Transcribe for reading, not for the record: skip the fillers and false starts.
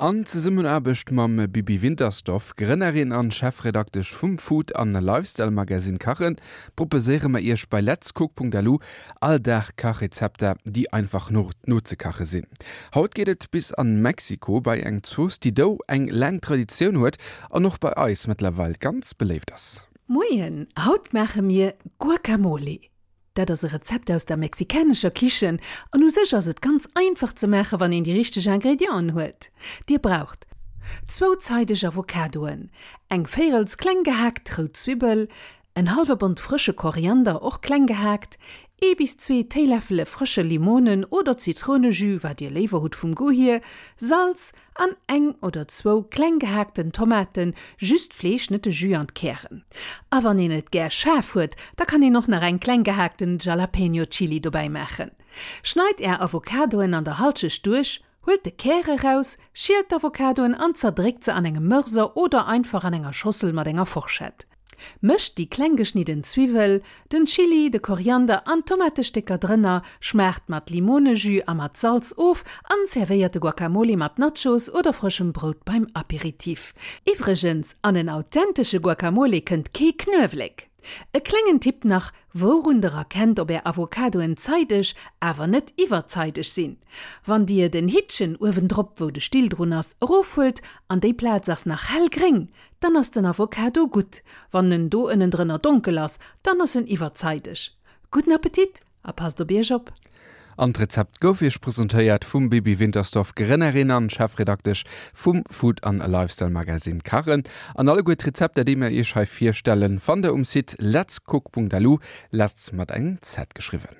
An Zesummenaarbecht mam Bibi Wintersdorf, Grënnerin an Chefredaktesch vum Food an Lifestyle Magazine Kachen, proposéiere mer iech bei letscook.lu all Dag Kachrezepter, déi einfach nozekache sinn. Haut geet et bis an Mexiko bei eng Zooss, déi do eng laang Traditioun huet an och bei eis mëttlerweil ganz beléift ass. Moien, haut maache mir Guacamole. Dat ass e Rezept aus der mexikanescher Kichen an u sech ass et ganz einfach ze maache wann een déi richteg Ingredienten huet. Dir braucht, zwou zeideg Avocadoen, eng véirels kleng gehaakt rout Zwibbel, en hallwe Bond frësche Koriander, och kleng gehaakt, ee bis zwee Téiläffele frësche Limonen oder Zitrounejus, wat dir léiwer hutt vum Goût hier, Salz, An eng oder zwou kleng gehaakten Tomaten, just d'Fleesch, net de Jus an d'Kären. A wann een et gär schaarf huet, da kann een och nach eng kleng gehaakten Jalapeño Chili dobäi maachen. Schneit är Avocadoen an der Halschecht duerch, huelt de Kär eraus, schielt d'Avocadoen an zerdréckt se an engem Mörser oder einfach an enger Schossel mat enger Forschett. Mëscht déi kleng geschnidden Zwiwwel, den Chili, de Koriander an d'Tomatestécker drënner, schmaacht mat Limonejus a mat Salz of an servéiert de Guacamole mat Nachos oder frëschem Brout beim Aperitif. Iwwregens, an en authentesche Guacamole kënnt kee Knuewelek! E klengen Tipp nach, Wourun der erkennt ob är Avocadoen zeideg, awer net iwwerzeideg sinn? Wann dir den Hittchen uewendrop, wou de Still drun ass, erofhuelt an déi Plaz ass nach hellgréng, Dann ass den Avocado gutt. Wann en do ënnendrënner donkel ass, dann ass en iwwerzeideg. Gudden Appetit a passt op iech op! An d'Rezept gouf iech presentéiert vum Bibi Wintersdorf, Grënnerin an Chefredaktesch vum Food an Lifestyle Magazine Kachen. An alleguer d'Rezepter déi mir iech hei virstellen, fannt der um Site letscook.lu, letz mat engem Z geschriwwen.